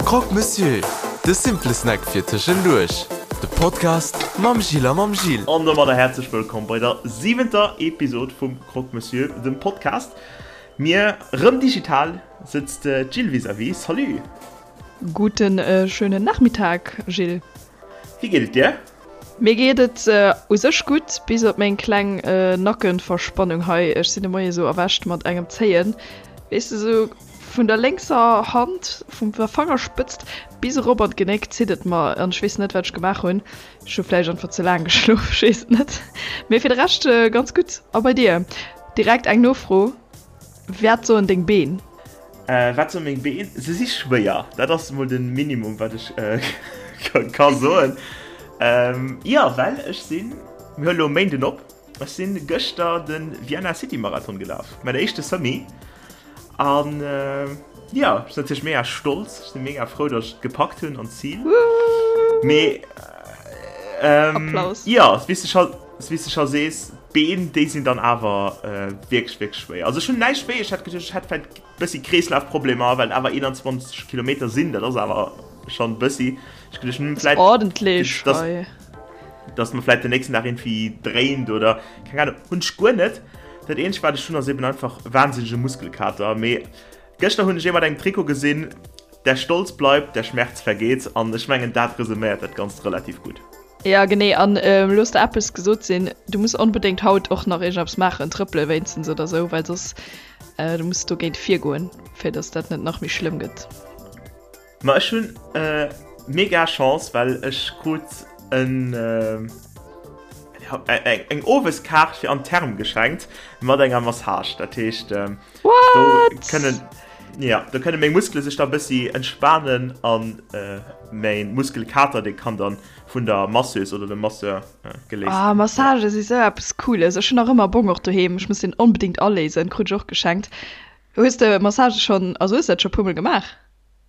Croque Monsieur, de simple Snack fir tëschenduerch. De Podcast mam Gilles a mam Gil. An domadder häerzlech wëllkomm bei der siwenter Episod vum Croque Monsieur, dem Podcast. Mir, rëm digital, sëtzt d'Jill vis-à-vis. Salut! Guten schönen Nachmittag, Gilles. Wéi geet et dir? Mir geet et u sech gutt, bis op meng kleng Nackenverspannung hei. Ech sinn de Moie sou erwächt mat engem Zéien, weess de, sou vun der lénkser Hand, vum der Fangerspëtzt bis erop an d'Genéck zitt et mer an ech weess net wat ech gemaach hunn. Ech hu vläicht einfach ze laang geschlof, ech weess et net. Mee fir de Rescht ganz gutt. A bei dir? Direkt eng Nofro, Wat soen deng Been? Wat soen meng Been? Se si schwéier. Dat ass mol de Minimum, wat ech ka soen. Jo, well ech sinn, mir huele lo e Méinden op, ech sinn gëschter de Vienna City Marathon gelaf, mäin éischte Semi. An jo, ech sinn natierlech mega stolz, ech sinn mega frou, datt ech et gepackt hunn an d'Zil. Mee jo, wéi s de scho, wéi s de scho sees, D'Been, déi sinn dann awer wierklech, wierklech schwéier. Also ech hunn näischt wéi, ech hätt geduecht, ech hätt vläicht bëssi Kreeslafproblemer, well et awer 21 Kilometer sinn, dat ass awer schonn bëssi. Ech geduecht, hm, vläicht, Ordentlech dass, hei. dass mer vläicht den nächsten Dag irgendwie dréint oder keng Ahnung, hunn ech guer net. Dat eenzegt, wat ech hunn, ass eben einfach wahnsinnege Muskelkater. Mee gëschter hunn ech ee mat engem Trikot gesinn, Der Stolz bleibt, der Schmerz vergeht, an ech mengen, dat resuméiert dat Ganzt relativ gutt. Ja genee, an looss der eppes gesot sinn, du muss onbedéngt haut och nach iergendeppes maachen, trëppele wéinstens oder sou, well soss du muss dogéint virgoen, fir dass dat net nach méi schlëmm gëtt. Ma ech hunn mega Chance, well ech krut en eng Oweskaart fir an d'Therme geschenkt mat enger Massage. Dat heescht do kënnen ja do kënne meng Muskele sech da bëssi entspanen an mäin Muskelkater dee kann dann vun der Masseuse oder dem Masseur geléist Ah, ginn. Massagë si sou eppes Cooles. Ech hunn nach ëmmer Bong och doheem. Ech muss deen onbedéngt aléisen. Krut ech och geschenkt. Hues de Massagë schonn, also hues de dat scho puer mol gemaach?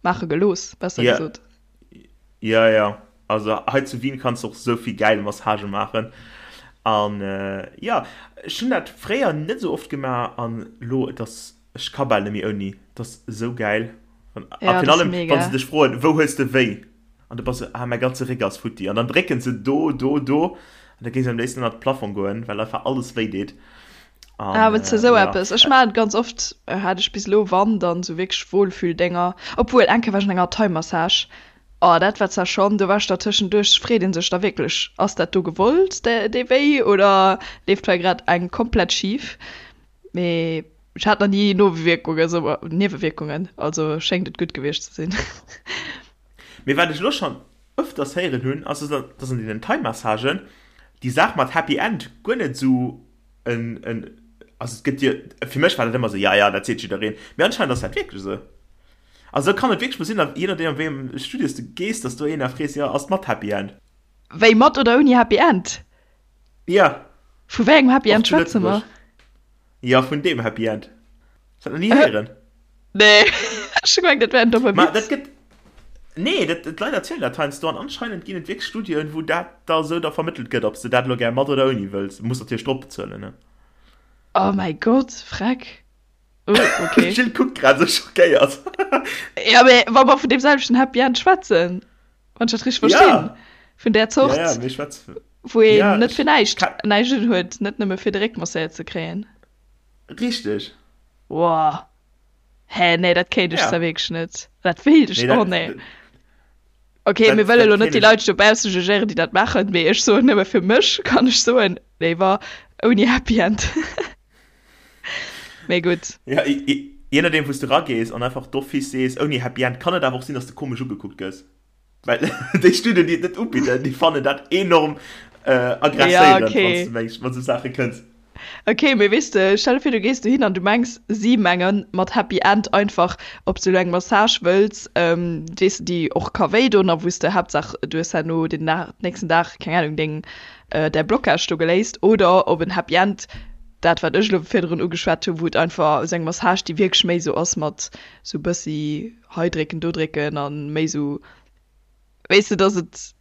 Maache gelooss, besser Ja, gesot. ja, ja. Also hei zu Wien kanns de och sou vill gäil Massagë maachen. An jo, ech hunn dat fréier net sou oft gemaach an lo, et ass, ech ka bal net méi ouni. Et ass sou gäil. An a Ja, virun dat ass allem, wann se mega. dech froen, wou hues de wéi? An du bass sou, ah, mäi ganze Réck ass futti. An dann drécken se do, do, do. An da géing se am léifsten ënnert de Plafong goen, well einfach alles wéi deet. Ah, An wënns de sou ja. eppes? Ech maachen et ganz oft, hat ech bis elo, wann, dann sou wierklech Wohlfühl-Dénger. Obwuel, eng Kéier war ech an enger Thai-Massage. Oh, dat war zwar schonn, do war ech da tëschenduerch, freet ee sech da wierklech, ass dat do gewollt, dee Wéi, oder leeft hei grad eng komplett schif? Mee ech hat nach ni Nowierkungen, sou Niewewierkungen, also schéngt et gutt gewiescht ze sinn. Mee wat ech elo schonn ëfters héieren hunn, ass, dass an deenen Thai-Massagen déi Saach mat Happy End guer net esou en, en, also et gëtt jo, fir mech war dat ëmmer esou, ja, ja, dat seet jiddereen, mee anscheinend ass dat wierklech esou. Also kann et wierklech mol sinn, je nodeem an wéi engem Studio s de gees, dass do een da frees, jo, ass et mat Happy End? Wéi, mat oder ouni Happy End? Ja. Vu wéi engem Happy Och End zu schwätze mer? Lëtzebuerg. Jo, vun deem Happy End. Hues dat nach ni héieren? Nee, ech hu gemengt, dat wär en domme Ma dat Witz. gëtt, nee, dat, d'Leit erzielen dat heiansdo an anscheinend ginn et wierklech Studioen, wou dat da esou da vermëttelt gëtt, ob s de dat elo gär mat oder ouni wëlls. Muss natierlech drop bezuelen, ne? Oh mäi Gott, freck. Oh, okay. D'Jill kuckt grad esou schockéiert. Ja, mee wa mer vun deem selwechten Happy End schwätzen, wann ech dat richteg verstinn, Ja. vun där Zort, Ja, ja, mir schwätzen. wou een Ja, net ech fir näischt ka. näischt un huet, net nëmme fir de Réck masséiert ze kréien. Richteg. Woah. Hä, nee, dat kéint ech Ja. zwar wierklech net. Dat wéilt ech, Nee, oh dat, nee. Okay, mir dat, wëlle dat lo net kéint déi ech. Leit dobausse jugéieren, déi dat maachen, mee ech soen nëmme fir mech kann ech soen, léiwer ouni Happy End. Mee gutt. Ja, je nodeem wou s de ragees an einfach d'office sees ouni Happy End, kann et awer och sinn, dass de komesch ugekuckt gëss. Well déi Studien, déi et net ubidden, déi fannen dat enorm Ja, aggresséierend, wann s okay. de mengs, mat esou Saache kënns. Okay, mee weess de, stell der vir, du gees dohin an du mengs, si menge mat Happy End einfach, ob s du elo eng Massage wëlls, weess de, déi och ka wéi doen a wou s de Haaptsaach du hues herno den Dag, nächsten Dag, keng Ahnung, deng, däi Blocage do geléist, oder ob en Happy End, dat wat ech elo virdrun ugeschwat hunn, wou et einfach esou eng Massage, déi wierklech méi esou ass mat esou bëssi hei drécken, do drécken a méi esou, weess de, dass et.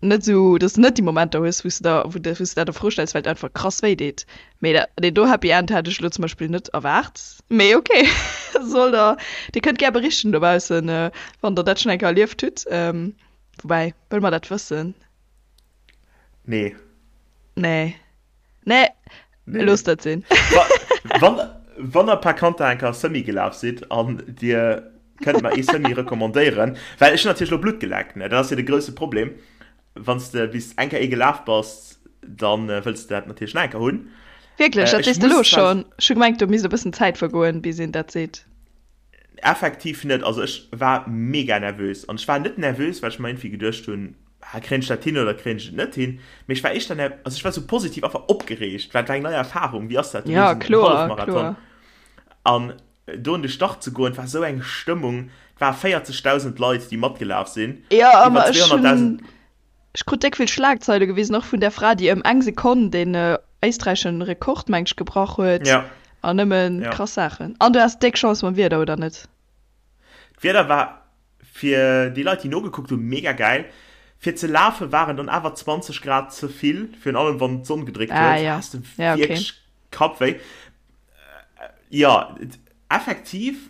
Net esou, dass de net déi Momenter hues, wou s de der, wou de, wou s de dat a Fro stells, well et einfach krass wéi deet. Mee dat, deen do Happy End hat ech elo zum Beispill net erwaart. Mee ok, soll der, dir kënnt gär berichten dobaussen, wann der dat schonn eng Kéier erlieft hutt. Woubäi, wëlle mer dat wëssen? Nee. Nee. Nee, Nee. looss dat sinn. Wa, wann, wann der par conter eng Kéier Semi gelaf sidd an dir kënnt mer ee Semi recommandéieren, well ech hunn natierlech elo Blutt geleckt, ne, dat ass jo de grousse Problem, wann s de bis eng Kéier ee gelaf bass, dann wëlls de dat natierlech nach eng Kéier hunn. Wierklech, Äh, dat ech sees de elo muss zwar schonn? Ech hu gemengt, do misst e bëssen Zäit vergoen, bis een dat seet. Effektiv net. Also ech war mega nervös. An ech war net nervös, well ech mer iergendwéi geduecht hunn, ah, kréien ech dat hin oder kréien ech et net hin? Mee ech war éischter ner, also ech war sou positiv einfach opgereegt, well et war eng nei Erfahrung. Wéi ass dat? Du Ja, leefs en kloer, Hallefmarathon. kloer. An do un de Start ze goen, et war sou eng Stëmmung. Et ware 40.000 Leit, déi matgelaf sinn. Ja, Iwwer awer ech 200.000. hunn, ech krut déck vill Schlagzeile gewisen, och vun där Fra, déi ëm eng Sekonn deen éisträichschen Rekord, mengt ech, gebrach huet. Ja. An nëmmen Ja. krass Saachen. An du has déck Chance mam Wieder, oder net? D'Wieder war fir déi Leit, déi nogekuckt hunn, mega gäil. Fir ze lafe waren dann awer 20 Grad ze vill, virun allem wann d'Sonn gedréckt Ah huet, ja, has de ja okay. wierklech Kappwéi. Jo, effektiv,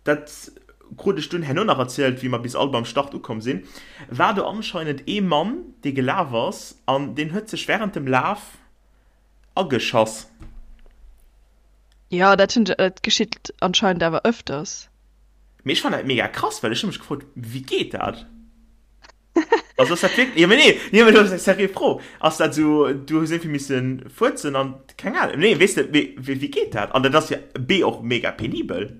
dat krut ech dunn herno nach erzielt, wéi mer bis all beim Start ukomm sinn, war do anscheinend ee Mann, dee gelaf ass an deen huet sech wärend dem Laf ageschass. Jo, dat hunn, dat geschitt anscheinend awer ëfters. Mee ech fannen dat mega krass, well ech hu mech gefrot, wéi geet dat? Also ass dat wierklech, jo mee nee, nee mee dat ass eng seriö Fro, ass dat esou, du hues iergendwéi missen fuerzen an keng Ahnung, nee weess de, mee wéi geet dat? An dat ass jo B och mega penibel.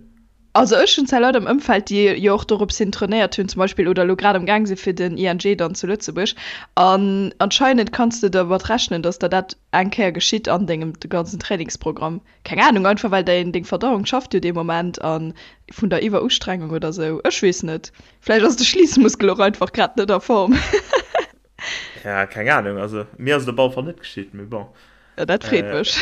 Also ech hunn zwar Leit am Ëmfeld, déi jo och dorops hin trainéiert hunn zum Beispill oder elo grad am Gaang si fir den ING dann zu Lëtzebuerg an anscheinend kanns de dermat rechnen, dass der dat eng Kéier geschitt an dengem ganzen Trainingsprogramm. Keng Ahnung, einfach well däin deng Verdauung schafft jo dee Moment an vun der Iwwerustrengung oder sou, ech weess net. Vläicht ass de Schliissmuskel och einfach grad net a Form. Ja, keng Ahnung, also mir ass et op alle Fall net geschitt, mee bon. Ja, dat freet mech.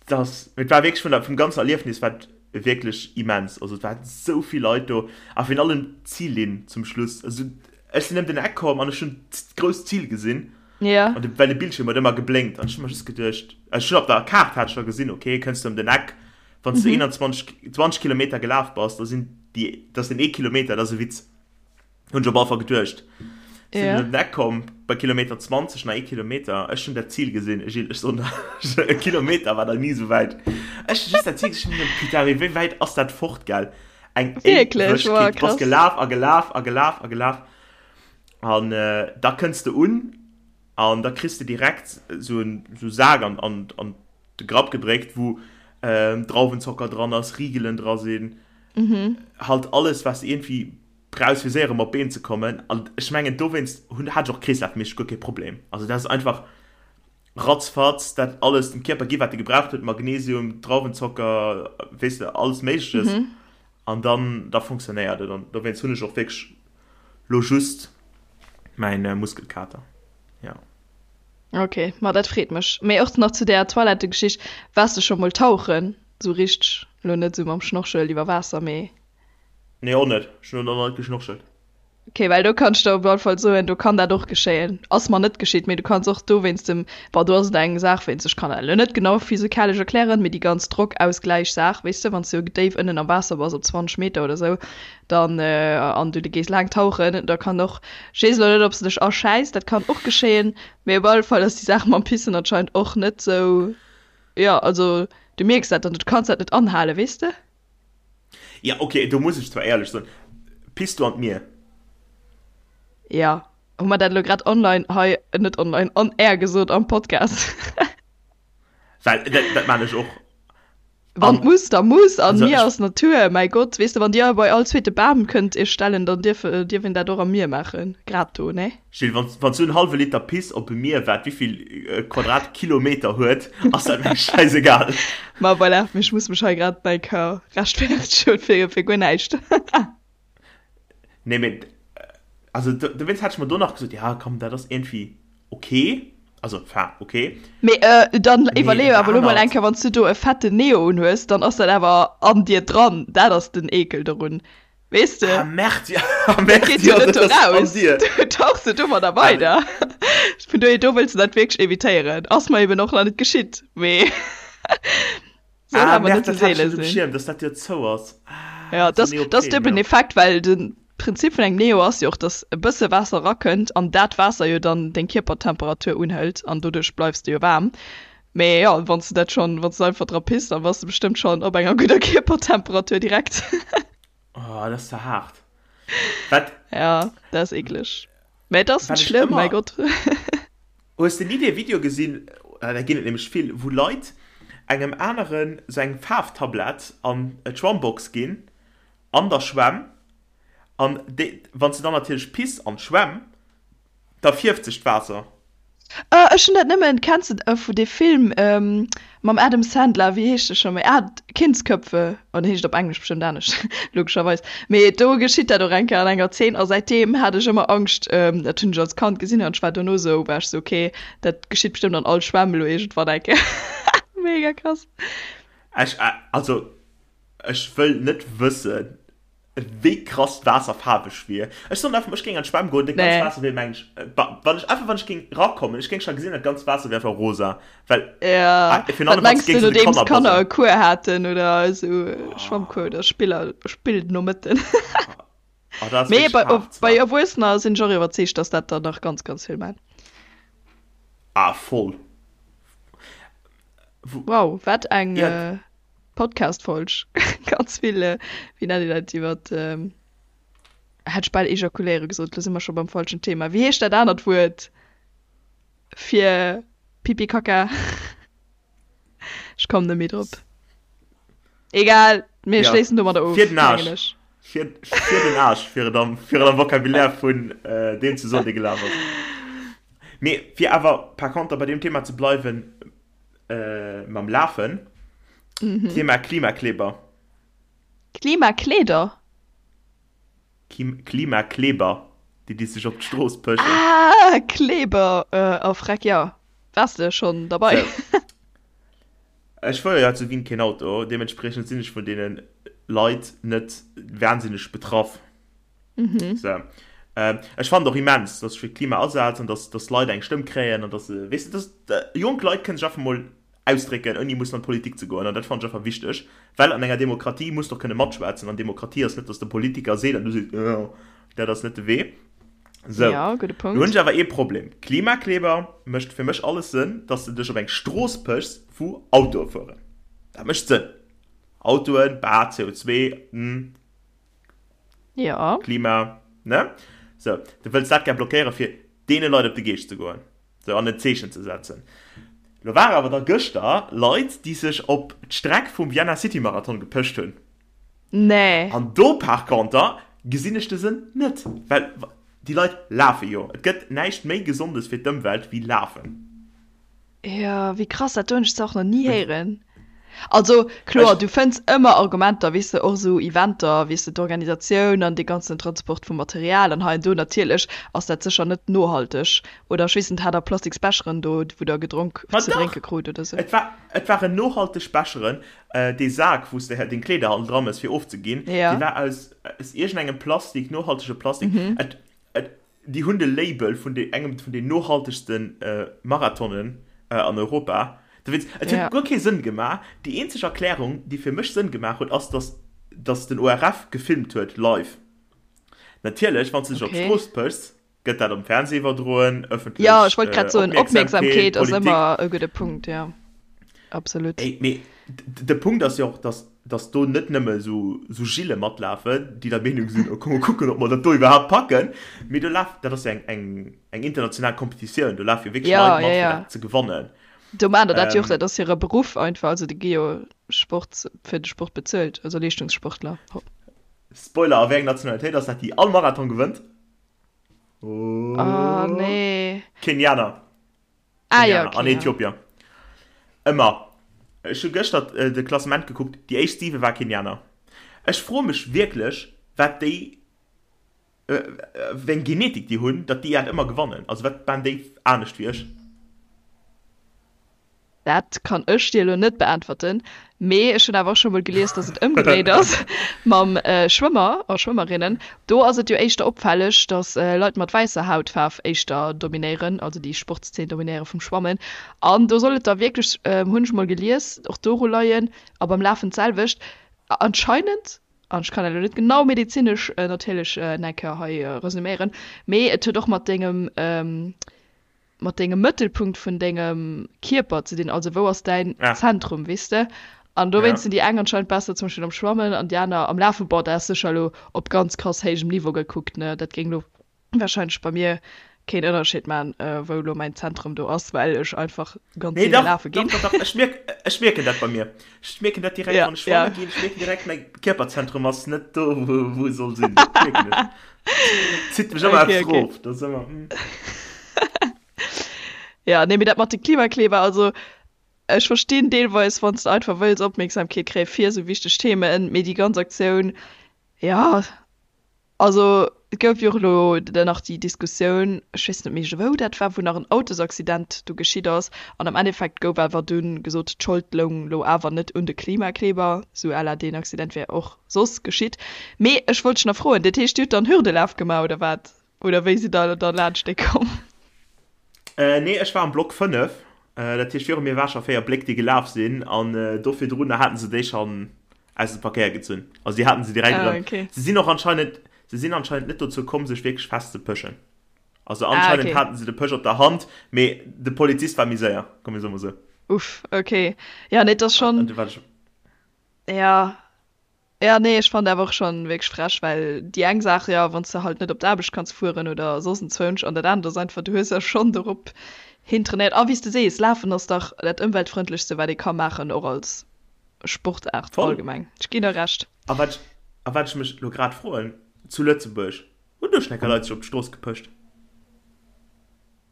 Das, et war wierklech vun der, vum ganzen Erliefnis war et wierklech immens. Also et waren esou vill Leit do a virun allem d'Zillinn zum Schluss. Also ech sinn ëm den Eck komm an ech hunn d'grousst Zil gesinn. Ja. An de, well de Bildschierm huet ëmmer geblénkt an ech hu mer just geduecht, also ech hunn op der Kaart hat ech scho gesinn, okay, kënns du ëm den Eck, wann s du 21, 20 Kilometer gelaf bass, da sinn déi, da ass den ee Kilometer, dat ass e Witz. Hunn ech op alle Fall geduecht. Sinn Ja. ëm den Eck komm, bei Kilometer 20, nach ee Kilometer. Ech hunn dat Zil gesinn, Gilles, ech soen der, e Kilometer war der ni esou wäit. Ech hunn just dat Zil gesinn, ech hunn geduecht, putain, mee wéi wäit ass dat fort, gell? Eng Wierklech? Wow, Éiwegkeet. Du bass krass. gelaf a gelaf a gelaf a gelaf. An da kënns de un an da kriss de direkt esou en esou Sak an, an, an de Grapp gedréckt, wou Drauwenzocker dran ass, Rigelen dra sinn, halt alles, wat s de iergendwéi brauchs fir séier erëm op d'Been ze kommen. An ech mengen dowéinst hunn, hat ech och kreeslafméisseg guer kee Problem. Also dat ass einfach ratzfatz dat alles dem Kierper gi wat e gebraucht huet, Magnesium, Drauwenzocker, weess de, alles Méigleches. An dann, da funktionéiert et. An dowéinst hunn ech och wierklech lo just mäin Muskelkater. Jo. Ok, ma dat freet mech. Mee och nach zu där Toilettegeschicht, Waars de scho mol tauchen? Sou richteg, lo net sou mam Schnorchel iwwer Waasser, mee. Nee och net, ech hun och nach net geschnorchelt. Ok, well do kann ech der op alle Fall soen, do kann dat och geschéien. Ass mer net geschitt, mee du kanns och do wéinst dem, bon do ass et eng Saach wéinst, ech kann dat elo net genau physikalesch erklären, mee déi ganz Drockausgläich-Saach, weess de, wann s du déif ënnen am Waasser bass, op 20 Meter oder sou, dann, an du gees laang tauchen, da kann och, ech weess elo net, ob s de dech aschäiss, dat kann och geschéien, mee op alle Fall ass déi Saach mam Pissen anscheinend och net sou, jo, also du mierks dat dann, du kanns dat net anhalen, weess de. Ja, okay, do muss ech zwar éierlech soen, Piss du an d'Mier? Ja, hu mer dat elo grad online hei, net online, on air gesot am Podcast? Well dat, dat maan ech och. Wann An, muss, da muss, an also Mier ech, ass Natur, mäi Gott, weess de, wann Dir bei all zweete Bam kënnt Iech stellen, dann dierf, dierf een dat och am Mier maachen, grad do, ne? Gilles, wann, wann s du en hallwe Liter Piss op e Mier, wat wéivill Quadratkilometer huet, ass dat mir schäisegal. Ma voilà, mee ech muss mech hei grad mäi Cœur rechtfertegen fir, fir guer näischt. Nee, mee, also do, dowéinst hat ech mer do nach gesot, ja komm, dat ass iergendwéi ok, also enfin ok. Mee dann Mee iwwerleeë dat awer elo mol eng anert. Kéier, wann s du do e fetten Neo unhues, dann ass dat awer an dir dran, dat ass den Eekel dorun. Weess de? Ah Merd, ja, ah Dat Merd, geet jo ja, net dat do ass an raus. dir. Du tauchs jo domadder Ah, weider. Vun dohier, do wëlls de dat wierklech evitéieren. Ass mer eben och nach net geschitt, mee soll ah awer Merd, net sou dat hat ech seele net um sinn. Schierm, dass dat jo zou ass. Ah, Ja, sou dass dass Neopren, duebelen jo. Effekt, well de Prinzip vun engem Neo ass jo och, dass e bësse Waasser erakënnt an dat Waasser jo dann deng Kierpertemperatur unhëlt an doduerch bleifs de jo waarm. Mee jo, wann s de dat schonn, wann s de einfach dra piss, dann bass de bestëmmt schonn op enger gudder Kierpertemperatur direkt. Oh, dat ass ze haart. Wat, Ja, dat ass eekleg. Mä et ass wat net ech schlëmm, mäi ëmmer. Gott. Hues de ni dee Video gesinn, da ginn et nämlech vill, wou Leit engem aneren sou eng Faarftablett an d'Schwammbox ginn, an der Schwämm, an déi, wann s de dann natierlech piss an d'Schwämm, da fierft sech d'Waasser. Ah, ech hunn dat nëmmen, kenns de vu dee Film mam Adam Sandler, wéi heescht de scho méi? Ah, Kindsköpfe, oh den heescht op Englesch bestëmmt anescht, logescherweis. Mee do geschitt dat och eng Kéier an enger Zeen a säitdeem hat ech ëmmer Angscht, dat hunn ech als Kand gesinn an ech war dono sou, war ech sou, okay, dat geschitt bestëmmt an all Schwämm elo iergendwann eng Kéier. Mega krass. Ech, also ech wëll net wëssen, Wéi krass d'Waasser faarweg wier. Ech soen einfach, ech géing an d'Schwämm goen, dat ganzt Nee. Waasser wier mengen ech, wann ech einfach wann ech géing rakommen, ech géing scho gesinn, dat ganzt Waasser wier einfach rosa, well Ja, virun wat allem wann s mengs de géings un de nodeems Kanner d'Kanner e buzzelen. Cours haten oder esou Schwammcours oder Spiller, Spillnomëtten. Oh, dat ass Mee wierklech bei, haart bei zwar. Erwuessener sinn ech och iwwerzeegt, dass dat der nach ganz, ganz vill man. Ah, voll. Wou, Wow, wat eng ja. Podcast-Folg. Ganz vill, wéi nennt een dat, iwwer, hätt ech bal ejakuléiere gesot, lo si mer scho beim falschen Thema. Wéi heescht dat anert Wuert fir Pipi Kaka? Ech kommen net méi drop. Egal, mir Ja, schléissen domadder fir of, den mengen Aarsch. ech. Fir, fir den Aarsch, fir et am, fir et am Vocabulaire vun deem ze soen, dee gelaf ass. Mee fir awer par conter bei deem Thema ze bleiwen, Mam Lafen. Mhm. Thema Klimakleber. Klimakleeder? Kim Klimakleber, déi déi sech op d'Strooss pëschen. Ah, Kleber! Oh freck, jo. Waars de schonn derbei? Sou. Ech fuere jo hei zu Wien keen Auto, deementspriechend sinn ech vun deene Leit net wahnsinneg betraff. Mhm. Sou. Ech fannen et och immens, dass sech fir d'Klima asetzt an dass, dass Leit eng Stëmm kréien an dass se, weess de, dass jonk Leit kënnen sech einfach mol ausdrécken, ouni mussen an d'Politik ze goen. An dat fannen ech einfach wichteg, well an enger Demokratie muss de och kënne matschwätzen. An Demokratie ass net, dass de Politiker seet an du sees, jo, dat ass net de Wee. Sou. Ja, gudde Lo hunn Punkt. ech awer ee Problem. Klimakleber mécht fir mech alles Sënn, dass de dech op eng Strooss pëchs, wou Autoe fueren. Dat mécht Sënn. Autoen, bah, CO2, hm. Ja. Klima, ne? Sou, du wëlls dat gär blockéieren, fir deene Leit op de Geescht ze goen, sou, an en Zeechen ze setzen. Lo ware awer da gëschter Leit, déi sech op d'Streck vum Vienna City Marathon gepëscht hunn. Nee. An do par conter gesinn ech de Sënn net, well déi Leit lafe jo. Et gëtt näischt méi Gesondes fir d'Ëmwelt wéi lafen. Jo, wéi krass, dat do hunn ech zwar och nach ni héieren. Also kloer, du fënns ëmmer Argumenter, weess de, och esou Eventer, weess de, d'Organisatioun an dee ganzen Transport vum Material an hei an do, natierlech ass dat sécher net nohalteg. Oder ech weess net, hat der plastiks Becheren do, wou der gedronk, Ma ze dach! drénke krut oder sou? Et war, et waren nohalteg Becheren. Dee Sak, wou s de deng Kleeder hannen dra mëss fir ofzeginn, dee war aus, aus iergendengem Plastik, nohaltege Plastik. Et, et, Déi hunn de Label vun de engem vun den nohaltegste Marathonen an Europa. Dowéinst, et huet guer kee Sënn gemaach. Déi eenzeg Erklärung, déi fir mech Sënn gemaach huet, ass, dass dass den ORF gefilmt huet live. Natierlech, wann s de dech op d'Strooss pëchs, gëtt dat am Fernseh iwwerdroen, ëffentlech Jo, ech wollt grad soen, Opmierksamkeet, Opmierksamkeet ass Politik. ëmmer e gudde Punkt, jo, absolut. Ey, mee de Punkt ass jo och, dass dass do net nëmme esou Gillen matlafen, déi der Meenung sinn, oh komm mol kucken, ob mer dat do iwwerhaapt packen, mee do laf, dat ass jo eng, eng, eng international Kompetitioun, do lafe jo wierklech Ja, Leit ja, mat, fir ja. dat ze gewannen. Do maachen der dat jo och, Ähm, dat ass hire Beruff einfach, also déi gi jo Sport, fir de Sport bezuelt, also Leeschtungssportler. Spoiler, a wéi eng Nationalitéit ass dat, déi all Marathon gewënnt? Oh Oh, nee. Kenianer. Ah ja, Kenianer okay, an ja. Äthiopier. Ëmmer. Ech hu gëschter de Klassement gekuckt, déi éischt 7 war Kenianer. Ech froe mech wierklech, wat déi, wéi eng Genetik déi hunn, datt déi dat ëmmer gewannen. Also wat maan déi anescht wéi ech? Dat kann ech dir elo net beäntwerten. Mee ech hunn awer och scho mol gelies, dass et ëmgedréit ass mam Schwëmmer a Schwëmmerinnen. Do ass et jo éischter opfälleg, dass Leit mat wäisser Hautfaarf éischter dominéieren, also déi Sportszeen dominéiere vum Schwammen. An do soll et da wierklech, hunn ech mol gelies, och doru leien a beim Lafen d'selwecht. Anscheinend, an ech kann dat elo net genau medezinesch natierlech nach eng Kéier hei resuméieren, mee et huet och mat dengem, mat dengem Mëttelpunkt vun dengem Kierper ze dinn, also wou ass däin ah. Zentrum, weess de? An dowéinst ja. sinn déi eng anscheinend besser zum Beispill am Schwammen an déi aner am Lafen. Boah, dat ass sécher elo op ganz krass héijem Niveau gekuckt, ne? Dat géing elo wahrscheinlech bei mir keen Ënnerscheed man, äh, wou elo mäin Zentrum do ass, well ech einfach ganz nee, doch, lafe ginn. Doch, doch, doch. Ech mierk, ech mierken dat bei mir. Ech mierken dat direkt, ja, wann ech schwamme ja. ginn. Ech mierken direkt, mäi Kierperzentrum ass net do, wou, wou e soll sinn. Dat mierken ech. Zitt mech ëmmer okay, eppes okay. rof. Dat ass ëmmer. Hm. Ja, nee, mee dat mat de Klimakleber, also ech verstinn deelweis, wann s de einfach wëlls Opmierksamkeet kréie fir esou wichteg Themen, mee déi ganz Aktioun, ja, also et gouf jo och elo dann nach déi Diskussioun, ech weess net méi wou dat war, wou nach en Autosaccident do geschitt ass an am Endeffekt gouf awer dunn gesot, d'Schold loung lo awer net un de Klimakleber, sou à la deen Accident wär och soss geschitt. Mee ech wollt dech nach froen, dat heescht dir hutt dann Hürdelaf gemaach oder wat? Oder wéi sidd der da laanscht dee komm? Nee, ech war am Block 5, dat heescht viru mir war scho 4 Bléck déi gelaf sinn an do virdrun haten se déi schonn aus dem Verkéier gezunn. Also déi haten se direkt Ah, erëm. okay. Se sinn och anscheinend, se sinn anscheinend net dozou komm sech wierklech festzepëschen. Also Ah, anscheinend okay. haten se de Pësch op der Hand, mee de Polizist war méi séier, komm mir soe mol sou. Uff, okay. Ja, nee, et ass An schonn, du war ech. ja. Ja, nee, ech fannen awer och schon wierklech frech, well déi eng Saach, jo, wann s de halt net op d'Aarbecht kanns fueren oder soss enzwousch, an dat anert ass einfach, du hues jo schon dorop hin trainéiert. A wéi s de sees, Lafen ass dach dat ëmweltfrëndlechste wat ee ka maachen, och als Sportaart Voll. allgemeng. Ech ginn der Recht. A wat ech, a wat ech mech elo grad froen, zu Lëtzebuerg, hunn do schon enker Leit sech op d'Strooss gepëscht?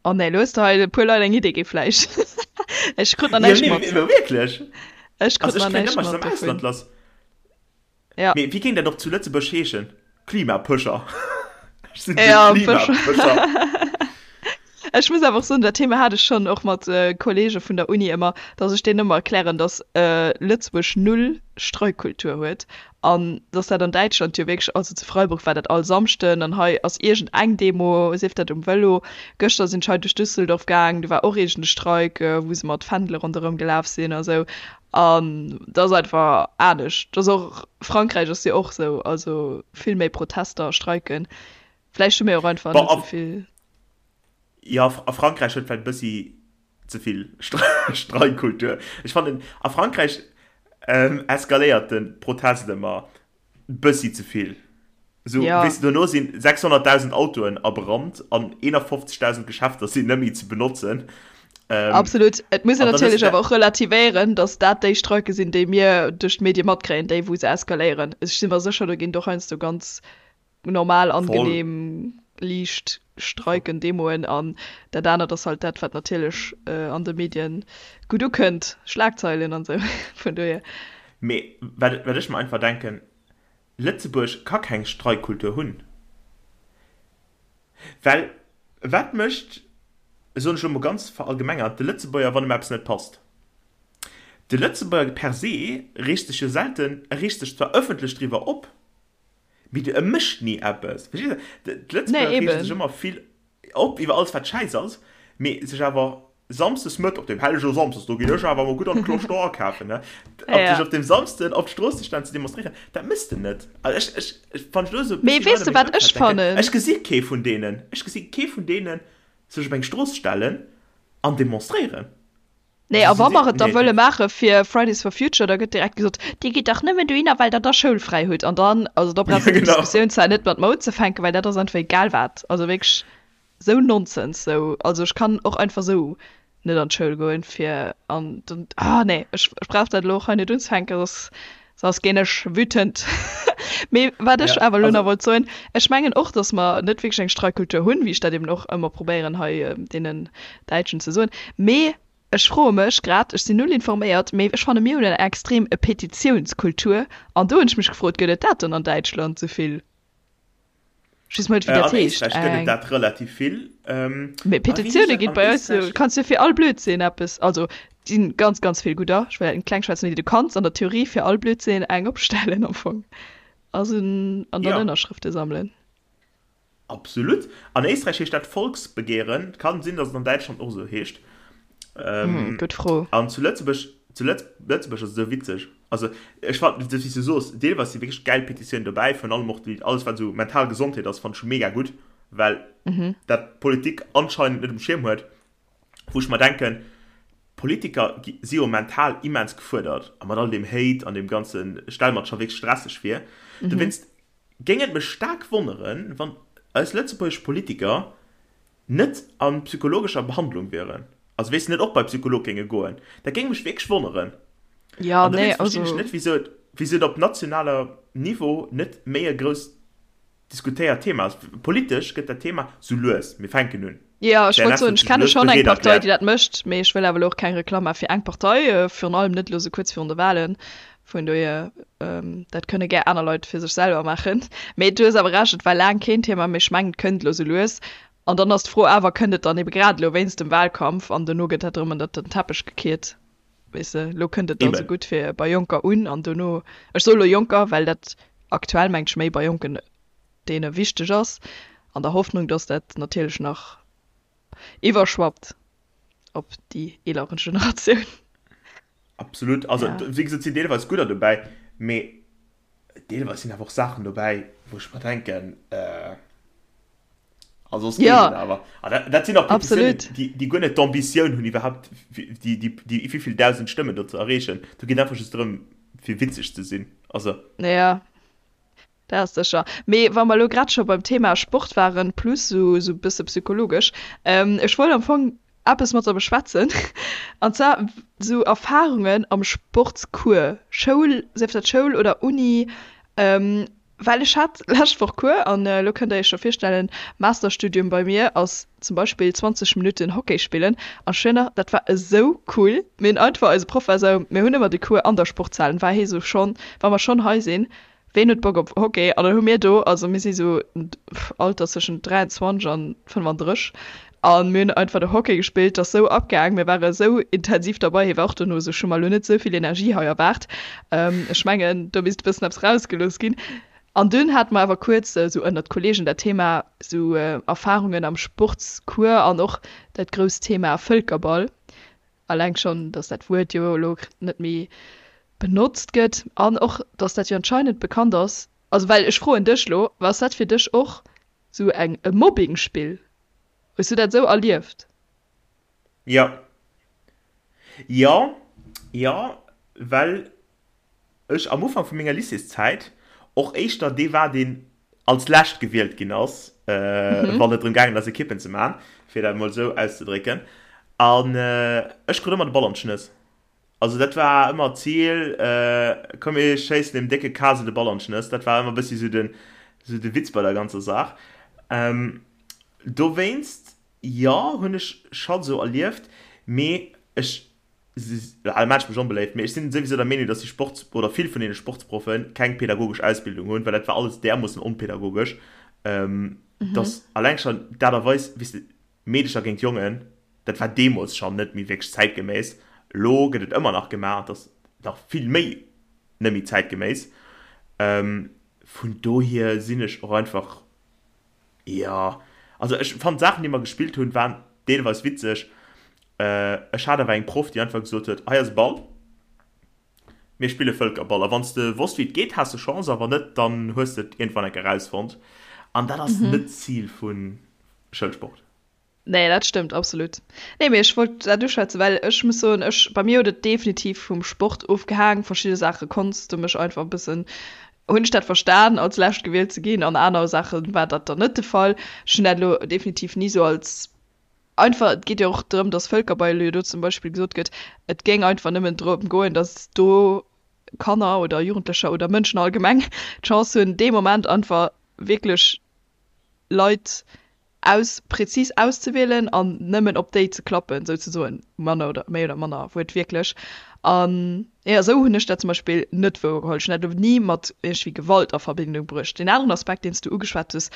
Oh nee, lo hues de hei e puer Leit eng Idee gi vläicht. Ech krut nach Jo, näischt nee, mat. mee wierklech. Ech krut Also ech nach kréien näischt ëmmer, ech mat sinn am dovun. Ausland lass. Ja. Mee wéi géing dat och zu Lëtzebuerg heeschen? Klimapëscher. Ech sinn de Ja, Pëscher. Klimapëscher. Ech muss awer och soen, dat Thema hat ech schonn och mat Kollege vun der Uni ëmmer, datt ech deenen ëmmer erklären, datt Lëtzebuerg null Streikkultur huet An dass dat an Däitschland jo wierklech, also zu Freiburg war dat all Samschden an hei ass iergend eng Demo, sief dat um Vëlo. Gëschter sinn ech hei duerch Düsseldorf gaang, do war och iergend e Streik, wou se mat Fändele ronderëm gelaf sinn a sou. An dat ass einfach anescht. Dat ass och, Frankräich ass jo och sou, also vill méi Protester a Streiken. Vläicht hu mir och einfach Bon, net a sou vill. jo, a Frankräich huet vläicht e bëssi ze vill Streikkultur. Ech fannen, a Frankräich eskaléiert de Protest ëmmer bëssi ze vill. Esou, Ja. weess de, dono sinn 600.000 Autoen a Brand an 51.000 Geschäfter sinn net méi ze benotzen. Absolut. Et muss een An dann hues natierlech de awer och relativéieren, datt dat déi Streike sinn, déi mir duerch d'Medie matkréien, déi wou se eskaléieren. Ech si mer sécher, do ginn et och heiansdo ganz normal, angenehm, liicht Streiken, Demoen an dat anert ass halt dat, wat natierlech an de Medien gutt ukënnt, Schlagzeilen an esou, vun dohier. Mee wat ech mer einfach denken, Lëtzebuerg ka keng Streikkultur hunn, well wat mécht, soen ech elo mol ganz verallgemengert, de Lëtzebuerger, wann em eppes net passt? De Lëtzebuerger per se reegt sech jo selten, e reegt sech zwar ëffentlech driwwer op, Mee e mécht ni eppes. Verstees de? D'Lëtzebuerger Nee, reege sech eben. ëmmer vill op iwwer alles, wat schäiss ass, mee sech awer samsdes Mëtt, op deem hellege Samsdes, do ginn ech awer emol gutt an d'Cloche d'Or akafen, ne? Op Ja. sech op deem Samsden op d'Strooss ze stellen, ze demonstréieren, dat méchs de net. Also ech, ech, ech, wann ech elo esou e Mee bëssi weess Leit de, a mengem wat ech Ëmfeld denken, fannen? ech gesi kee vun deenen, ech gesi kee vun deenen sech op eng Strooss stellen an demonstréieren. Nee, a wa mer et da wëlle maache fir Fridays for Future, da gëtt direkt gesot, Dir gitt dach nëmmen dohinner, well Der da schoulfräi hutt. An dann, also da brauchs de déi Diskussioun zwar net mat mer unzefänken, well dat ass einfach egal wat. Also wierklech esou Nonsens. Sou, also ech kann och einfach esou net an d'Schoul goen, fir an dann, ah nee, ech brauch dat elo och hei net unzefänken, soss Soss ginn ech wütend. Mee wat ech awer elo nach wollt soen, ech mengen och, datt mer net wierklech eng Streikkultur hunn, wéi ech dat eben och ëmmer probéieren hei deenen Däitschen ze soen. Mee ech froe mech grad, ech sinn null informéiert, mee ech fanne mir hunn eng extrem Petitiounskultur an do hunn ech mech gefrot, gëtt et dat dann an Däitschland esou vill? Ech weess mol net, wéi Äh, dat an heescht. Éisträich gëtt et Eng. dat relativ vill. Ähm, Mee a wéi heescht Petitioune dat ginn an bei eis jo, Éisträich? kanns jo fir all Blödsinn eppes, also et si ganz, ganz vill gudder, ech wëll dat net kleng schwätzen, mee du kanns an der Theorie fir all Blödsinn eng opstellen am Fong also an dann Ja. Ënnerschrëfte sammelen. Absolut. An Éisträich heescht dat Volksbegehren. Et kann sinn, datt et an Däitschland och esou heescht. Hm, gutt Fro. An zu Lëtzebuerg, zu Lëtz, Lëtzebuerg ass et esou witzeg. Also ech fannen, wéi s du soos, deelweis si wierklech gäil Petitiounen dobäi, virun allem och déi, alles wat esou mental Gesondheet ass, fannen ech mega gutt, well dat d'Politik anscheinend net um Schierm huet, wou ech mer denken, Politiker gi, si jo mental immens gefuerdert a mat all deem Hate an deem ganzen, ech stelle mer et scho wierklech stresseg vir. Dowéinst géing et mech staark wonneren, wann eis lëtzebuergesch Politiker net a psychologescher Behandlung wieren, also wéi se net och bei Psycholog géinge goen, dat géing mech wierklech wonneren. Ja, An nee, dowéinst verstinn ech also. net, wisou et, wisou et op nationaler Niveau net méi e grousst diskutéiert Thema ass. Politesch gëtt dat Thema sou lues, mir fänken un. Ja, ech wollt CNS soen, huet ech sech kenne lues schonn eng bereet Partei, déi erkläert. dat mécht, mee ech wëll awer elo och keng Reklamm maache fir eng Partei, virun allem net elo sou kuerz virun de Wahlen. Vun dohier, dat kënne gär aner Leit fir sech selwer maachen. Mee du hues awer Recht, et war laang keen Thema, mee ech mengen, et kënnt elo sou lues. An dann ass d'Fro awer, kënnt et dann ebe grad elo wéinst dem Wahlkampf an dono gëtt dat erëm ënnert den Teppech gekiert, weess de? Elo kënnt et dann esou Eben. gutt fir bei Jonker un an dono, ech soe elo Jonker, well dat aktuell mengt ech méi bei Jonken deene wichteg ass, an der Hoffnung, datt dat natierlech nach iwwerschwappt op déi eelere Generatioun. Absolut. Also, Ja. wéi gesot, sinn deelweis gudder dobäi, mee deelweis sinn awer och Saachen dobäi, wou ech mer denken, äh, also soss geet Ja, et awer. An dat, dat sinn och Petitiounen, absolut. déi, déi guer net d'Ambitioun hunn, iwwerhaupt déi, déi, déi wéivill 1.000 Stëmmen do ze erreechen. Do geet einfach just drëm, fir witzeg ze sinn. Also. Ja, dat ass sécher. Mee wa mer elo grad scho beim Thema Sport waren, plus esou e bësse psychologesch, ech wollt am Fong eppes mat der beschwätzen, an zwar esou Erfarungen am Sportscours, Schoul, sief dat Schoul oder Uni, well ech hat lescht Woch Cours an elo kënnt der iech scho virstellen, Masterstudium bei mir ass zum Beispill 20 Minutten Hockey spillen an ech weess nach, dat war esou cool, mir hunn einfach, eise Proff war esou, mir hunn ëmmer de Cours an der Sportshal, an war hie sou, schonn wa mer schonn hei sinn, Ween huet Bock op Hockey? An dann hu mir do, also mir si sou Alter zwëschen 23 an 35, a mir hunn einfach do Hockey gespillt, dat ass sou abgaang, mir ware sou intensiv derbei. Hie war och dono sou, ech hu mer elo net sou vill Energie hei erwaart, ech mengen do misst e bëssen eppes rausgelooss ginn. An dunn hate mer awer kuerz sou ënnert Kollegen dat Thema sou Erfarungen am Sportscours an och dat grousst Thema Vëlkerball. Alleng schonn, datt dat Wuert jo elo net méi benotzt gëtt an och, datt dat jo anscheinend bekannt ass. Also well ech froen dech elo, Ass dat fir dech och sou eng e Mobbingspill? Hues du dat esou erlieft? Jo. Jo, jo, well ech am Ufank vu menger Lycéeszäit och éischter dee war, deen als lescht gewielt ginn ass, wann et drëm gaangen ass, Ekippen ze maachen, fir dat emol esou auszedrécken. An ech krut ëmmer de Ball an d'Schnëss. Also dat war ëmmer d'Zil, komm mir schéissen deem décke Kase de Ball an d'Schnëss. Dat war ëmmer e bëssi esou den, esou de Witz bei der ganzer Saach. Dowéinst, jo, hunn ech scho esou erlieft, mee ech Al maacht mech onbeléift, mee ech sinn souwisou der Meenung, dass déi Sports oder vill vun deene Sportsproffen keng pädagogesch Ausbildung hunn, well dat war alles därmoossen onpädagogesch, dass alleng schonn d'Aart a Weis, wéi s de Meedecher géint Jongen, dat war deemools schonn net méi wierklech zäitgeméiss. Elo gëtt et ëmmer nach gemaach, et ass nach vill méi net méi zäitgeméiss. Vun dohier sinn ech och einfach Jo, also ech fannen d'Saachen déi mer gespillt hunn waren deelweis witzeg. Ech hat awer eng Proff déi einfach gesot huet, hei ass e Ball, mir spille Vëlkerball a wann s de wosst wéi et geet has de Chance a wann net dann hues de et iergendwann eng Kéier erausfonnt an dat ass net d'Zil vu Schoulsport. Nee, dat stëmmt absolut. Nee, mee ech wollt dat uschwätzen, well ech muss soen, ech, bei mir huet et definitiv vum Sport ofgehaang. Verschidde Saache konns de mech einfach e bëssen, hunn ech dat verstan, als Lescht gewielt ze ginn, an aner Saache war dat dann net de Fall. Ech hunn dat elo definitiv ni sou als einfach, et geet jo och drëm, dass Vëlkerball jo do zum Beispill gesot gëtt, et géing einfach nëmmen drëm goen, dass do Kanner oder Jugendlecher oder Mënschen allgemeng d'Chance hunn, dee Moment einfach wierklech Leit aus präzis auszewielen an nëmmen op déi ze klappen, souzesoen, manner oder méi oder manner wuertwierklech. An jo, esou hunn ech dat zum Beispill net wouergeholl. Ech hunn dat elo ni mat iergendwéi Gewalt a Verbindung bruecht. Deen aneren Aspekt, deen s du ugeschwat hues,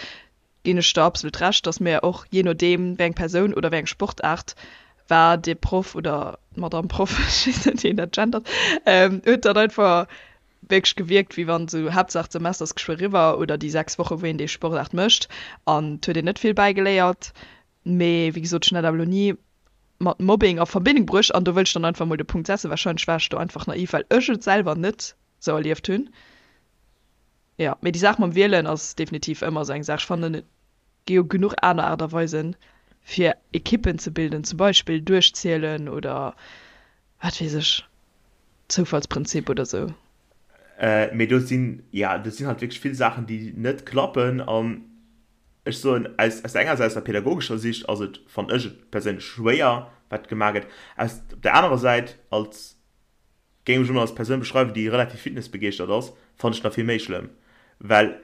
Ginn ech der absolut Recht, dass mir och, jee nodeem wéi eng Persoun oder wéi eng Sportaart war, de Proff oder d'Madame Proff, ech weess net wéi een dat gendert, huet dann einfach wierklech gewierkt, wéi wann esou Haaptsaach d'Semester ass geschwë eriwwer oder déi 6 Woche wou een déi Sportaart mécht an et huet een net vill bäigeléiert. Mee wéi gesot, ech hunn dat awer elo ni mat Mobbing a Verbindung bruecht an do wëll ech dann einfach mol de Punkt setzen, Warscheinlech war ech do einfach naiv, well ech et selwer net sou erlieft hunn. Jo, mee déi Saach mam Wielen ass definitiv ëmmer esou eng Saach. Ech fannen, et gi jo genuch aner Aart a Weisen, fir Ekippen ze bilden, zum Beispill duerchzielen oder wat weess ech, Zoufallsprinzip oder sou. Mee do sinn, jo, do sinn halt wierklech vill Saachen, déi net klappen. An ech soen, aus, aus der enger Säit, aus der pädagogescher Sicht ass et, fannen ech et perséinlech schwéier, wat gemaach gëtt. Aus, op der anerer Säit, als Géing mech emol als Persoun beschreiwen déi relativ fitnessbegeeschtert ass, fannen ech nach vill méi schlëmm, well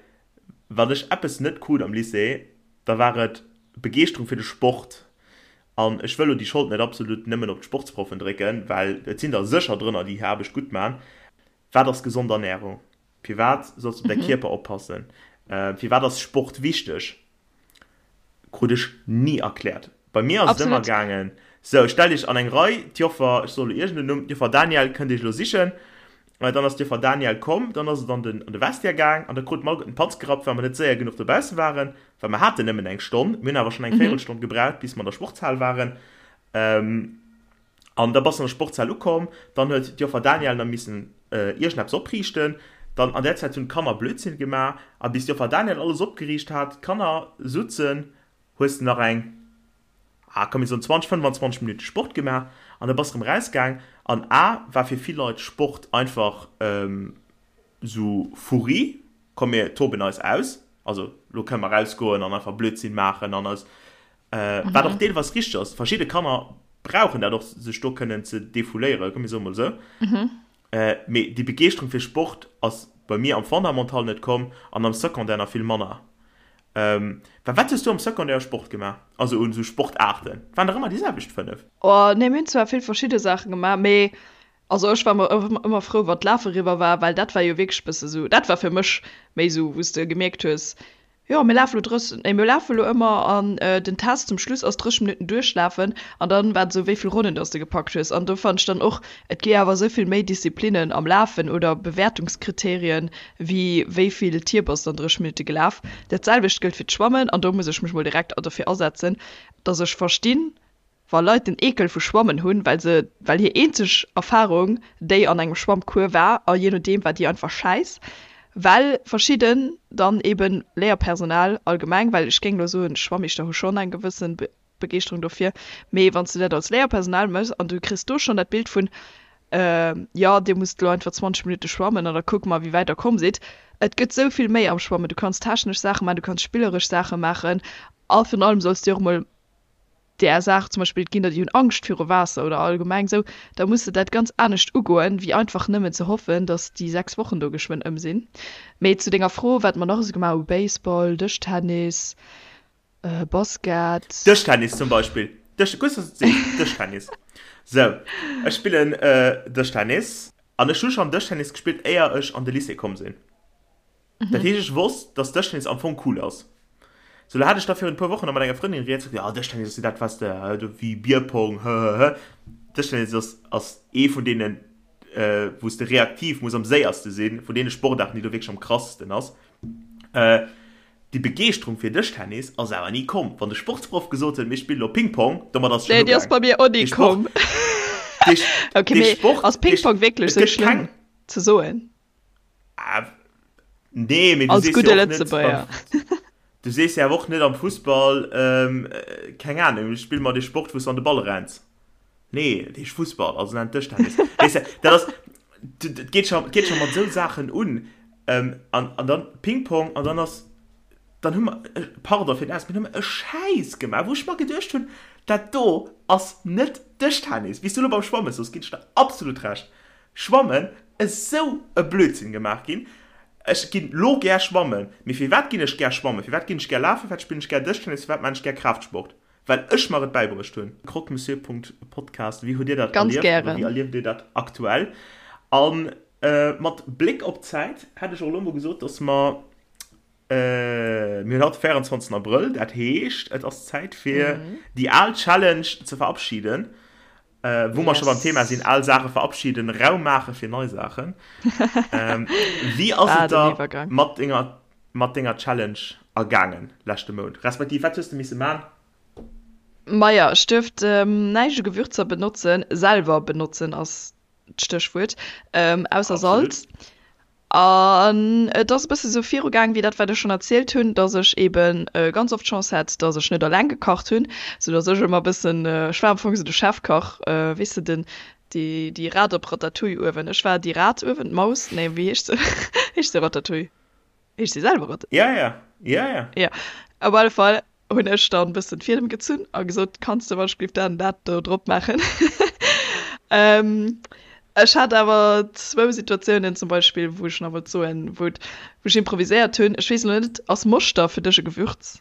wann ech eppes net krut am Lycée, da war et Begeeschterung fir de Sport. An ech wëll lo déi Schold net absolut nëmmen op d'Sportsproffen drécken, well et sinn der sécher drënner déi hir Aarbecht gutt man. Wat ass gesond Ernährung? Firwat solls de op däi Kierper oppassen? Firwat ass Sport wichteg? Krut ech ni erkläert. Bei mir ass et ëmmer gaangen, sou, stellt iech an eng Rei, d'Joffer, ech soe lo iergend en Numm, d'Joffer Daniel kënnt iech elo sichen. Dann ass d'Joffer Daniel komm, dann ass et an den, an de Vestiaire gaang an da krut mer alleguerten d'Panz gerappt, well mer net séier genuch dobausse waren, well mer haten nëmmen eng Stonn. Mir hunn awer schonn eng Véirelstonn gebraucht, bis mer an der Sportshal waren. An da bass de an der Sportshal ukomm, dann huet d'Joffer Daniel nach missen iergendeppes opriichten. Dann an där Zäit hunn d'Kanner Blödsinn gemaach. A bis d'Joffer Daniel alles opgeriicht hat, d'Kanner sutzen, hues de nach eng, ah komm mir soen 20, 25 Minutte Sport gemaach an da bass de rëm rausgaang. An a war fir vill Leit Sport einfach sou Furri, komm mir toben eis aus, also lo kënne mer rausgoen an einfach Blödsinn maachen an eis Wat och deelweis richteg ass. Verschidde Kanner brauchen dat och, sech do kënnen ze defouléieren, komm mir soe mol esou. Mee déi Begeeschterung fir Sport ass bei mir am Fondamental net komm an am Secondaire nach vill manner. Well wat hues du am Secondaire u Sport gemaach, also un esou Sportaarten? Et waren dach ëmmer déi selwecht 5. Oh nee, mir hunn zwar vill verschidde Saache gemaach, mee also ech war ëmmer frou, wann d'Lafe eriwwer war, well dat war jo wierklech e bësse esou, dat war fir mech méi esou, wou s de gemierkt hues, Jo, mir lafen elo 30, nee, mir lafen elo ëmmer an den Test zum Schluss ass 30 Minutten duerchlafen an dann war et esou, wéi vill Ronnen dass de gepackt hues. An do fannen ech dann och, et gi awer esou vill méi Disziplinnen am Lafen oder Bewäertungskriterien, wéi wéi vill Tier bass de an 30 Minutte gelaf. Dat selwecht gëllt fir d'Schwammen an do muss ech mech mol direkt derfir asetzen, dass ech verstinn, Wa Leit den Eekel vu Schwammen hunn, well se, well hir eenzeg Erfarung déi an engem Schwammcours war, a jee nodeem war déi einfach schäiss, well verschidden dann eben Léierpersonal allgemeng, well ech géing elo soen, Schwammeeschter hu schonn eng gewëssen Begeeschterung dofir, mee wann s de dat als Léierpersonal méchs an du kriss do schonn dat Bild vun, jo dir musst elo einfach 20 Minutte schwammen an da kucke mer wéi wäit der komm sidd. Et gëtt esou vill méi am Schwammen, du kanns technesch Saache maachen, du kanns spilleresch Saache maachen a virun allem solls de och emol där Saach, zum Beispill et ginn der déi hunn Angscht viru Waasser oder allgemeng esou, da muss de dat ganz anescht ugoen, wéi einfach nëmmen ze hoffen, datt déi 6 Wochen do geschwënn ëm sinn. Mee zu denger Fro, wat mer nach esou gemaach hu, Baseball, Dëschtennis, Basket. Dëschtennis zum Beispill, Dësch, gutt, dass du et sees, Dëschtennis. Sou, ech spillen Dëschtennis an ech hu schonn Dëschtennis gespillt, éier ech an de Lycée komm sinn. Dat heescht, ech wosst, dass Dëschtennis am Fong cool ass. Sou, lo hat ech da virun e puer Wochen nach mat enger Frëndin rieds, sot, jo, Dëschtennis ass jo dat, wat de, do wéi Bierpong, hëhëhë. Dëschtennis ass, ass ee vun deenen, wou s de reaktiv muss am séierste sinn, vun deene Sportaarten, déi do wierklech am krassesten ass. Déi Begeeschterung fir Dëschtennis ass awer ni komm. Wann de Sportsproff gesot huet, mir spillen lo Ping-Pong, domat ass et schonn ugaang. Nee, déi ass bei mir och ni komm. Ok, mee ass Ping-Pong wierklech sou schlëmm ze soen? Nee, mee du Als sees gudde jo och net Lëtzebuerger. beim, du sees jo awer och net am Fussball, ähm, keng Ahnung, spill mer dee Sport, wou s du an de Ball renns. Nee, dat heescht Fussball, also nennt Dëschtennis. Weess de, dat ass, dat geet scho, geet scho mat esou Saachen un. Ähm, an, an dann Ping-Pong, an dann ass, dann hu mer, pardon fir den Ausdrock, mee dann hu mer e Schäiss gemaach, wou ech mer geduecht hunn, dat do ass net Dëschtennis. Wéi s du elo beim Schwammen soos, ginn ech der absolut Recht. Schwammen esou e Blödsinn gemaach ginn. Ech ginn lo gär schwammen, mee firwat ginn ech gär schwammen, firwat ginn ech gär lafen, firwat spillen ech gär Dëschtennis, firwat maan ech gär Kraaftsport? Well ech mer et bäibruecht hunn. Croque-monsieur.podcast, Wéi hutt dir dat Ganz erlieft oder gären. wéi erlieft dir dat aktuell? An mat Bléck op d'Zäit hätt ech och elo mol gesot, dass mer. Mir hunn haut de 24. Abrëll, dat heescht, et ass Zäit fir déi al Challenge ze verabschieden. Wou mer scho beim Thema sinn, al Saache verabschieden, Raum maache fir nei Saachen. Wéi ass et der mat denger, mat denger Challenge ergaangen leschte Mount? Respektiv, wat hues de misse man? Maja, ech duerft näischt u Gewürzer benotzen, selwer benotzen ass d'Stéchwuert, ausser Salz. An et ass e bësse sou virugaang wéi dat, wat ech schonn erzielt hunn, dass ech eebe ganz oft d'Chance hat, dass ech net alleng gekacht hunn, sou dass ech ëmmer e bëssen, ech war am Fong sou de Chefkach, weess de, den, déi, déi Rat op Ratatouille uewen. Ech war déi Rat uewen, d'Maus, nee, wéi heescht se? Heescht se Ratatouille? Heescht se selwer Ratatouille? Ja, ja, ja, ja. Ja, op alle Fall hunn ech dann e bëssen d'Fiedem gezunn a gesot, kanns de wann ech géif dat an dat do drop maachen. Ech hat awer zwou Situatiounen zum Beispill, wou ech nach wollt soen, wou et, wou ech improviséiert hunn. Ech weess elo net, ass Moschter fir dech e Gewürz?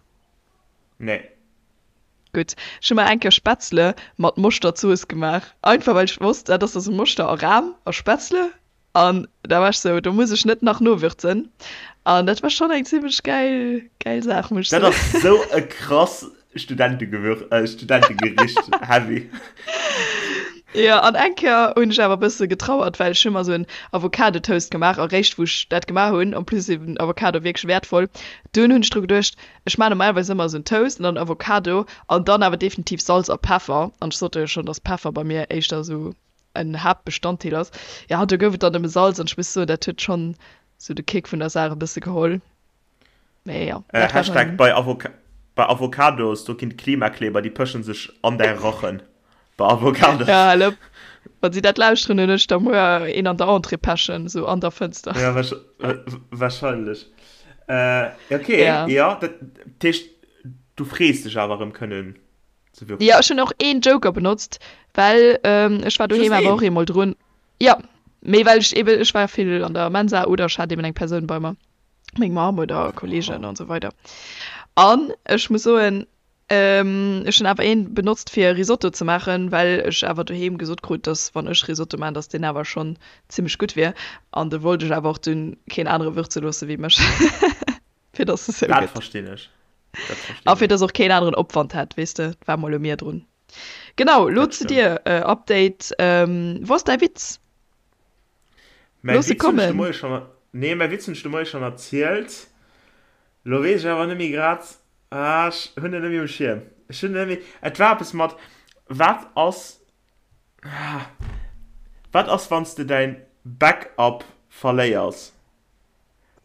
Nee. Gutt, ech hu mer eng Kéier Spätzle mat Moschterzooss gemaach, einfach well ech wosst, dat ass da sou Moschter a Ram a Spätzle. An da war ech sou, do muss ech net nach nowürzen. An dat war schonn eng zimmlech gäil, gäil Saach, muss ech Dat soen. ass sou e krass Studentengewür, äh, Studentegericht, heavy. Jo, an eng Kéier hunn ech awer e bësse getrauert, well ech hu mer sou en Avocado-Toast gemaach. A réischt wou ech dat gemaach hunn, en plus eben Avocado wierklech wäertvoll, dunn hunn ech dru geduecht, ech maachen normalerweis ëmmer sou en Toast an dann Avocado an dann awer definitiv Salz a Peffer. An ech sot der jo schonn, dass Peffer bei mir éischter sou en Haaptbestanddeel ass. Jo, do gouf et dann nëmme Salz an ech muss soen, dat huet schonn sou de Kick vun der Saach e bësse geholl. Mee jo, dat war Hashtag dann. Bei, Avoca bei Avocados, do ginn d'Klimakleber, déi pëschen sech an däi Rachen. Bei Avocados. Ja, hal op. Wann si dat lauschteren, hunn ech da muer een an der Entrée pechen, sou an der Fënster. Ja, wahrscheinlech. Äh, okay, ja, ja dat heescht, du frees dech awer erëm kënnen ze würzen. Jo, ech hunn och een Joker benotzt, well ech war doheem awer och eemol drun. Jo, mee well ech eben, ech war vill an der Mensa oder ech hat eben eng Persoun bei mer, meng Mamm oder Kollegen an esou weider. An ech muss soen, ech hunn awer een benotzt fir Risotto ze maachen, well ech awer doheem gesot krut, dass wann ech Risotto maachen, dass deen awer schonn zimmlech gutt wier. An do wollt ech awer och dunn keen anere würze loosse wéi mech. Fir dass es sou Dat gëtt. verstinn ech. Dat verstinn A fir ech. dass och keen aneren Opwand hätt, weess de, war mol u mir drun. Genau, lo Dat zu stimmt. dir, Update, wou ass däi Witz? Mäi Looss e Witz hunn ech de kommen. Moie schonn, nee, mäi Witz hunn ech de Moie schonn erzielt. Lo weess ech awer net méi grad, ah, ech hunn en net méi um Schierm. Ech hunn en net méi, et war eppes mat, wat ass, ah, wat ass, wann s de däin Backup verléiers?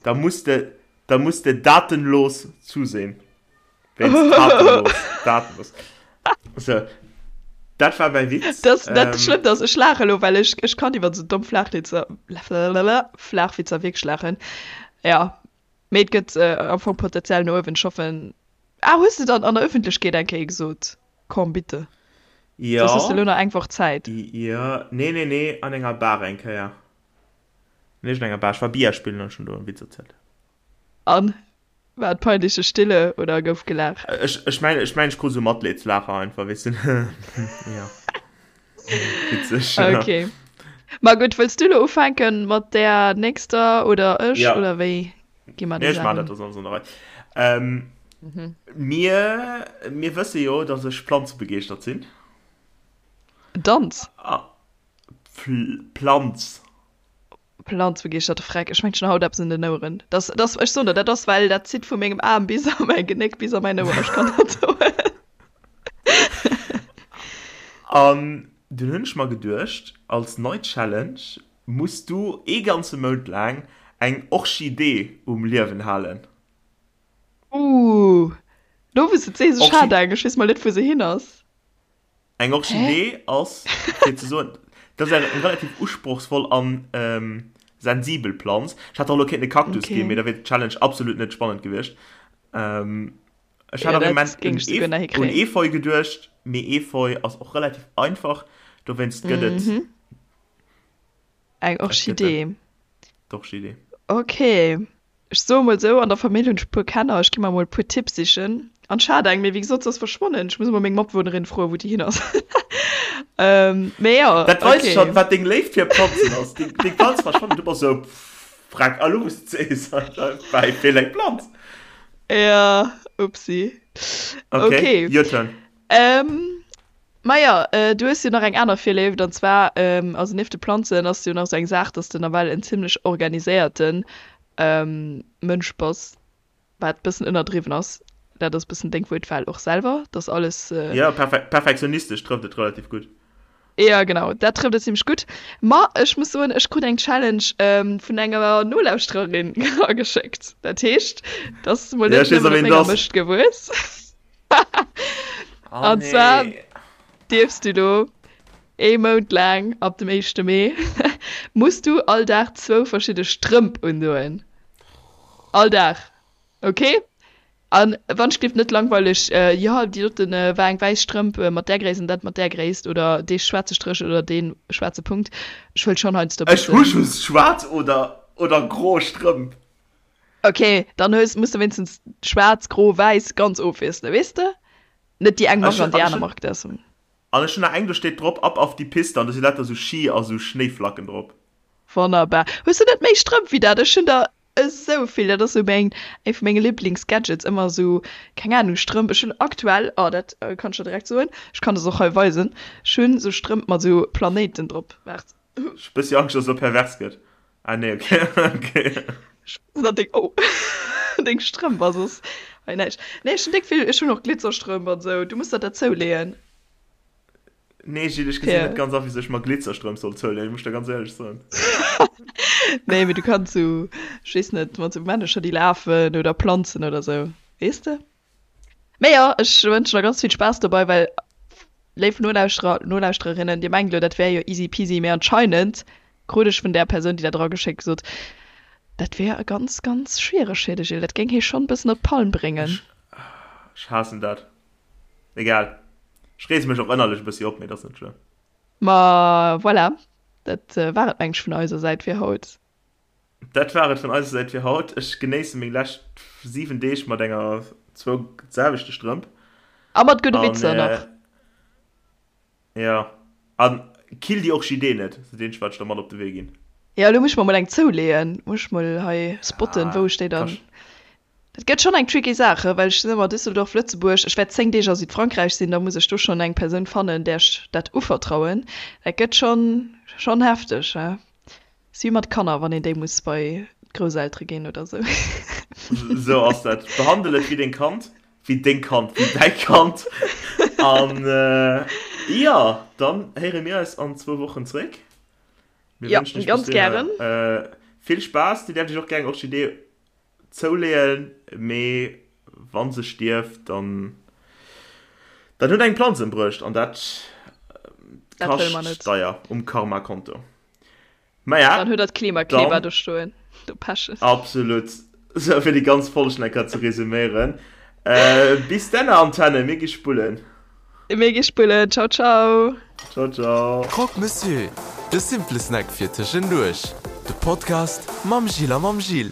Da muss de, da muss de datenlos zusehen. Wéinst tatenlos, datenlos. So, dat war mäi Witz. Das, dat ähm, Schlëmmt ass, ech laache lo, well ech, ech kann iwwer sou domm Flaachwitzer, Flaachwitzer wierklech laachen. Ja, mee et gëtt äh, am Fong Potenzial no uewen. Ech hoffen. Ah, hues de dann an der Öffentlechkeet eng Kéier gesot? Komm, bitte. Ja. Soss hues de lo nach eng Woch Zäit. Ja, nee, nee, nee, an enger Bar eng Kéier. An iergendenger Bar. Ech war Billard spillen an ech hunn do e Witz erzielt. An? War et peinliche Stille oder gouf gelaacht? Ech, ech mengen, ech mengen, ech krut esou Matleedslaacher einfach, weess de. Jo. Witzeg, ja. Okay. Ma gutt, wëlls du lo ufänken mat där nächster oder ech Ja. oder wéi gi mer Nee, déi ech maan Saach dat, un? dat ass alles an der Rei. Ähm, mir, mir wësse jo, dass ech planzebegeeschtert sinn. Danz? A, Planz. Planzbegeeschterte Freck, ech mengt schon haut eppes un den Oueren. Das, das, ech soen der, dat ass well dat zitt vu mengem Aarm bis a mäi Genéck, bis a mäin Ouer, ech kann dat soen. An dunn hunn ech mer geduecht, als nei Challenge muss du ee ganze Mount laang eng Orchidee um Liewen halen. Ooh, lo wou s de et sees, ech hat eng, ech weess mol net wou se hin ass. Eng Orchidee ass, fir ze soen, dat ass eng relativ usprochsvoll an sensibel Planz. Ech hätt och elo kéinten e Kaktus ginn, mee da wier d'Challenge absolut net spannend gewiescht. Ech hat am Moment un Efeu geduecht, mee Efeu ass och relativ einfach, dowéinst gëtt et Eng Orchidee. D'Orchidee. Okay. Ech soe mol sou, an der Famill hunn ech e puer Kenner, ech gi mer mol e puer Tipps sichen. An ech hat eng, mee wéi gesot, se ass verschwonnen. Ech muss emol meng Matbewunnerin froen, wou déi hin ass. Mee jo, Dat weist okay. schonn, wat deng Léift fir Planzen ass. Deng, deng Planz verschwannen, du bass sou, pff, freck, a lo wou s de sees, bäi feelt eng Planz. Ja, upsi. Okay, okay. Your turn. Ähm, ma ja, äh, du hues jo nach eng aner Virléift, an zwar, ähm, also nieft de Planzen ass jo nach sou eng Saach, dass de nawell en zimmlech organiséierten ähm, Mënsch bass, wat bëssen ënnerdriwwen ass. Dat ass bëssen deng Wuertwahl och selwer, dass alles. Äh, ja, perfe perfektionistesch trëfft et relativ gutt. Ja, genau, dat trëfft et zimmlech gutt. Ma ech muss soen, ech krut eng Challenge ähm, vun enger Nolauschtererin ageschéckt. Dat heescht, dass mol Ja, net ech weess nëmmen a op ween menger et ass. Mëscht gewuess. Oh An zwar nee. dierfs du do ee Mount laang, ab dem éischte Mee, muss du all Dag zwou verschidde Strëmp undoen. All Dag, ok? An wann ech gelift net langweileg, jo déi doten war eng wäiss Strëmp mat där Gréisst an dat mat där Gréisst oder dee schwaarze Stréch oder dee schwaarze Punkt. Ech wëll schonn heiansdo Ech hu bëssen. just schwaarz oder oder gro Strëmp. Ok, dann hues, muss de wéinstens schwaarz, gro, wäiss ganz ofwiesselen, weess de? Net déi eng Ech Mark an hun, déi an ech aner hun, Mark, dat ass. an ech hun nach eng, do steet drop ab auf die Piste an do si lauter sou Ski a sou Schnéiflacken drop. Wonnerbar. Hues du net méi Strëmp wéi dat? Ech hunn der esou vill, dat ass sou meng, eng vu menge Liblingsgadgets, ëmmer sou, keng Ahnung, Strëmp. Ech hunn aktuell, oh dat kann ech der direkt soen, ech kann des och hei weisen, ech hunn sou Strëmp mat sou Planéiten drop, waart. Ech hu bëssi Angscht, dass et elo pervers gëtt. Ah nee, okay, okay. Ech deng, oh, deng Strëmp ass soss hei näischt. Nee, ech hunn déck vill, ech hunn och Glitzerstrëmp an sou, du muss der dat zouleeën. Nee Gilles, ech gesinn net ganz a wisou ech mer Glitzerstrëmp soll zouleeën, muss ech der ganz éierlech soen. Nee, mee du kanns sou, ech weess net, mat sou Männecher déi lafen oder Planzen oder sou, weess de? Mee jo, ech wënschen der ganz vill Spaass dobei, well, léif Nolauschterer, Nolauschtererinnen, dir mengt elo dat wär jo easy peasy, mee anscheinend krut ech vun där Persoun déi dat erageschéckt gesot, dat wär ganz ganz schwiereg fir de Gilles, dat géing hie schonn e bëssen op d'Palm bréngen. Ech, ech haassen dat. Egal. Ech reege mech och ënnerlech e bëssi op, mee dat ass net schlëmm. Ma voilà, dat war et meng ech vun eiser Säit fir haut. Dat war et vun eiser Säit fir haut. Ech genéisse meng lescht 7 Deeg mat enger zwou selwechte Strëmp. A mat gudde Witzer nach. Jo. An kill déi Orchidee net, ass dat eenzegt wat ech der mat op de Wee ginn. Jo, elo muss ech mer mol eng zouleeën. Muss ech mol hei spotten, wou ech déi dann. Dat gëtt schonn eng tricky Saach, well ech sinn ëmmer Düsseldorf, Lëtzebuerg. Ech wäert 10 Deeg a Südfrankräich sinn, da muss ech do schonn eng Persoun fannen, där ech dat uvertrauen. Dat gëtt schonn, schonn hefteg. Si wéi mat Kanner, wann een déi muss bei d'Grousseltere ginn oder sou. Sou ass dat. Behandel et wéi deng Kand, wéi deng Kand, wéi däi Kand. An jo, dann héiere mir eis an zwou Wochen zréck. Mir wënschen iech bis dohinner vill Spaass. Dir däerft iech och gär eng Orchidee Zouleeën, mee wann se stierft, dann dann huet eng Planz embruecht an dat kascht deier um Karma-Konto. Maja, dann huet der d'Klimakleber do stoen, do pechen. Absolut. Sou, fir déi ganz Folg nach eng Kéier ze resuméieren. Bis dänner, Antenne, mir gi spullen. Mir gi spullen. Ciao, ciao. Ciao, ciao. Croque Monsieur, de simple Snack fir tëschenduerch. De Podcast mam Gilles a mam Gilles.